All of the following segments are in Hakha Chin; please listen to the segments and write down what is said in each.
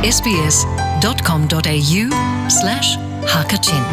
sbs.com.au slash hakachin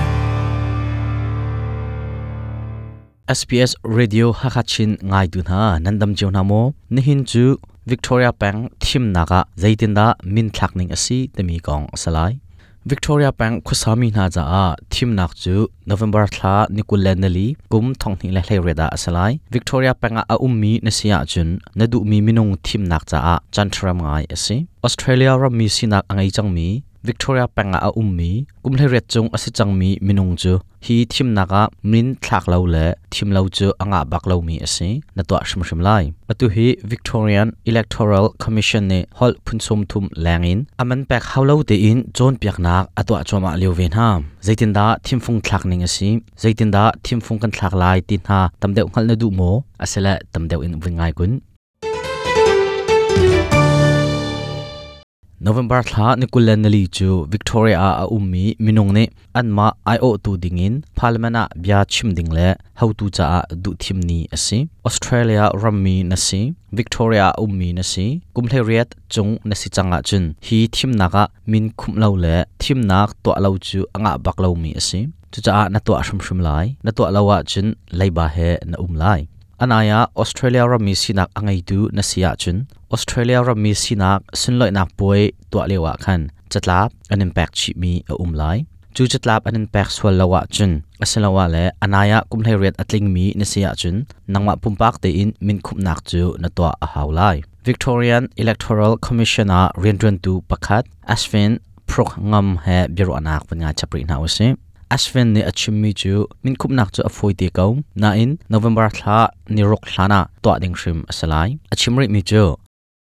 SBS Radio Hakachin ngaitu hna nan dam cio hna maw? Nihin cu Victoria peng thimnak ah zeitindah min thlak ning a si timi kong a si lai. Victoria peng khuasami hna caah thimnak cu November thla ni 24 kum 2018 ah a si lai. Victoria peng ah a ummi na si ahcun na duhmi minung thimnak caah canṭhiram ngai a si. Australia rammi sinak a ngei cangmi Victoria peng ah a ummi kum 18 cung a si cangmi minung cu hi thimnak ah min thlak lo le thim lo cu a ngah bak lomi a si. Na tuah hrimhrim lai. Atu hi Victorian Electoral Commission nih holh phun 30 leng in a man pek hau lo tein cawnpiaknak a tuah cuahmah lio ve hna. Zeitindah thimfung thlak ning a si? Zeitindah thimfung kan thlak lai ti hna tam deuh hngalh na duh maw? Asile tam deuh in vun ngai kun. November thla ni 24 cu Victoria ah a ummi minung nih anmah aiawhtu dingin parliament ah bia chim ding le hotu caah duhthim ni a si. Australia rammi na si, Victoria ah ummi na si, kum 18 cung na si cang ahcun hi thimnak ah min khumh lo le thimnak tuah lo cu a ngah bak lomi a si. Cucaah na tuah hrimhrim lai. Na tuah lo ahcun leiba he na um lai. An ai ah Australia rammi sinak a ngeitu na si ahcun Australia rammi sinak sunlawihnak puai tuah lio ah khan catlap an in pek chihmi a um lai. Cu catlap an in pek sual lo ahcun asiloah le a nai ah kum 18 a tlingmi na si ahcun nangmah pumpak tein minkhumhnak cu na tuah a hau lai. Victorian Electoral Commission ah rianṭuantu pakhat Ashwin Prokngam he biaruahnak van ngai chap rih hna usih. Ashwin nih a chimmi cu minkhumhnak cu a fawi te ko, nain November thla ni ruk hlan ah tuah ding hrim a si lai. A chim rihmi cu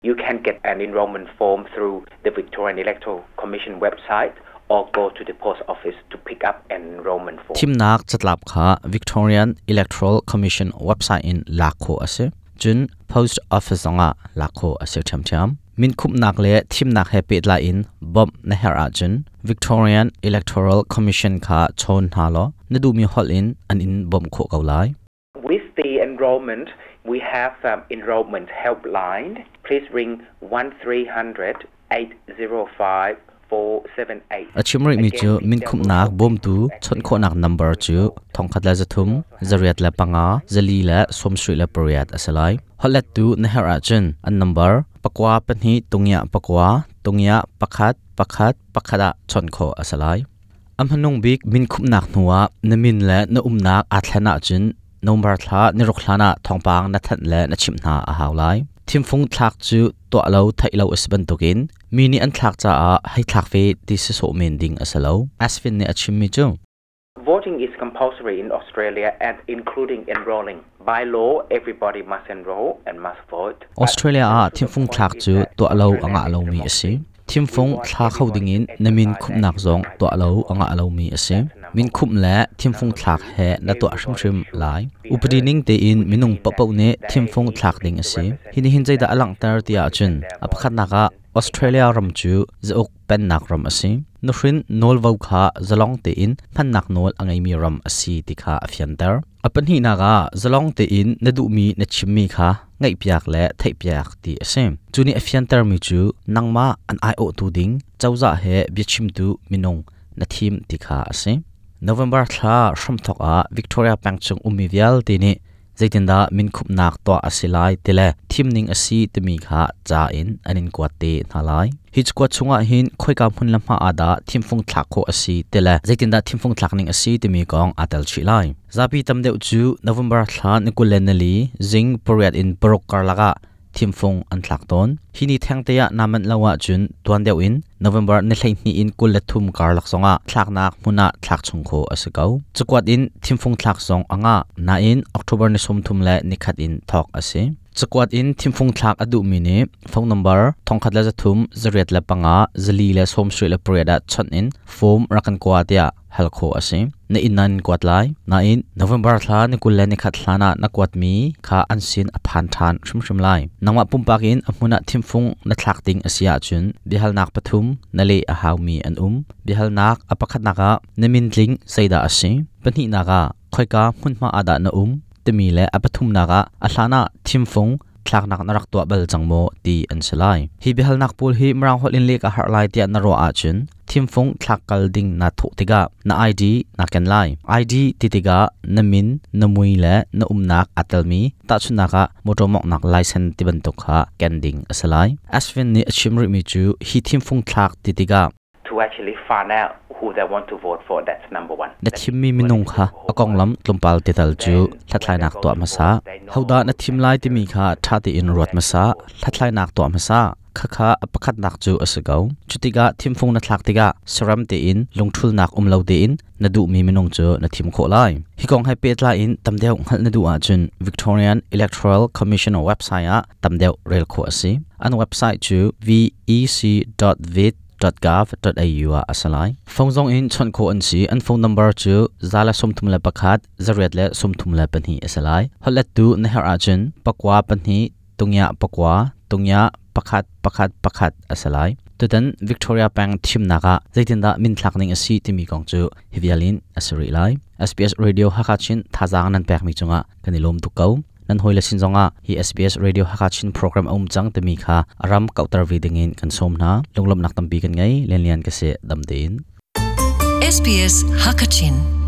You can get an enrollment form through the Victorian Electoral Commission website or go to the post office to pick up an enrollment form. Thimnak catlap kha Victorian Electoral Commission website in lak khawh a si. Cun post office zongah lak khawh a si ṭhiamṭhiam. Minkhumhnak le thimnak he pehtlai in bawmh na herh ahcun Victorian Electoral Commission kha chawn hna law na duhmi holh in an in bawmh khawh ko lai. With the enrollment, we have enrollment helpline. Please ring 1300 805 478. A chim rihmi cu minkhumhnak bawmtu chawnh khawhnak number cu 1300 405 478 a si lai. Holhlettu na herh ahcun an number 9 2 0 9 0 1 1 1 ah chawnh khawh a si lai. A hmanung bik minkhumhnak hnuah na min le na umnak aa thlen ahcun November thla ni ruk hlan ah thawngpang na thanh le na chimh hna a hau lai. Thimfung thlak cu tuah lo theih lo a si bantukin mi nih an thlak caah hei thlak ve ti si sawh men ding a si lo. Asvin nih a chimmi cu Voting is compulsory in Australia and including enrolling. By law, everybody must enroll and must vote. Australia ah thimfung thlak cu tuah lo a ngah lomi a si. Thimfung thla kho dingin na min khumhnak zong tuah lo a ngah lomi a si. Min khumh le thimfung thlak he na tuah hrimhrim lai. Upadi ning tein minung paohpaoh nih thimfung thlak ding a si. Hi nih hin zeidah a langhter ti ahcun a pakhatnak ah Australia ram cu zauk pennak ram a si. Nuhrin nawlvo kha zalong tein hmannak nawl a ngeimi ram a si ti kha a fianter. A pahnihnak ah zalong tein na duhmi na chimmi kha ngaihpiak le theihpiak ti a si. Cu nih a fiantermi cu nangmah an aiawhtu ding cozah he biachimtu minung na thim ti kha a si. November thla hramthawk ah Victoria peng chung ummi vialte nih zeitindah minkhumhnak tuah a si lai ti le thimning a si timi kha ca in an in kuat te hna lai. Hi cakuat chungah hin khoika hmun le hma ah dah thimfung thlak khawh a si ti le zeitindah thimfung thlak ning a si timi kong aa tel chih lai. Zapi tam deuh cu November thla ni 24 zing 8 in 6 karlak ah thimfung an thlak tawn. Hi ni thengte ah naa manh lo ahcun tuan deuh in November ni 12 in 23 karlak zongah thlaknak hmun ah thlak chung khawh a si ko. Cakuat in thimfung thlak zong a ngah. Nain October ni 30 le nikhat in thawk a si. Cakuat in thimfung thlak a duhmi nih phone number 1300 405 478 ah chawnh in form rak kan kua tiah hal khawh a si. Na inn nan kuat lai. Nain November thla ni 21 hlan ah na kuatmi kha an sin a phan ṭhan hrimhrim lai. Nangmah pumpak in a hmun ah thimfung na thlak ding a si ahcun biahalnak pathum na leh a haumi an um. Biahalnak a pakhatnak ah na min tling zeidah a si? Pahnihnak ah khoika hmunhma ah dah na um? Timi le a pathumnak ah a hlan ah thimfung thlaknak na rak tuah bal cang maw ti an si lai. Hi biahalnak pawl hi Mirang holh in leh ka harh lai tiah na ruah ahcun thimfung thlak kal ding naa thawh tikah na ID naa ken lai. ID ti tikah na min, na mui le na umnak aa telmi tahchunhnak ah motor mawnghnak license ti bantuk kha ken ding a si lai. Ashwin nih a chim rihmi cu hi thimfung thlak ti tikah to actually find out who they want to vote for. That's number one. Na thimmi minung kha a konglam tlawmpal tetal cu hlathlainak tuah hmasa. Hodah na thim lai timi kha ṭha tein ruat hmasa. Hlathlainak tuah hmasa. Khakha a pakhatnak cu a si ko. Cutikah thimfung na thlak tikah saram tein lungṭhulnak um lo tein na duhmi minung cu na thim khawh lai. Hi kong he pehtlai in tam deuh hngalh na duh ahcun Victorian Electoral Commission website ah tam deuh rel khawh a si. An website cu vec.vit www.gov.au ah a si lai. Phone zong in chawnh khawh an si. An phone number cu 131 832 a si lai. Holhlettu na herh ahcun pakua pahnih tungya pakua tungya pakhat pakhat pakhat a si lai. Tutan Victoria peng thimnak ah zeitindah minthlak ning a si timi kong cu hi vial in a si rih lai. SBS Radio Hakha Chin thazaang nan pekmi cungah kan i lawm tuk ko. Nan hawile sin zongah hi SBS Radio Hakha Chin program a um cang timi kha a ram kauhter ve dingin kan sawm hna. Lunglawmhnak tampi kan ngei. Lianlian ka si dam tein. SBS Hakachin.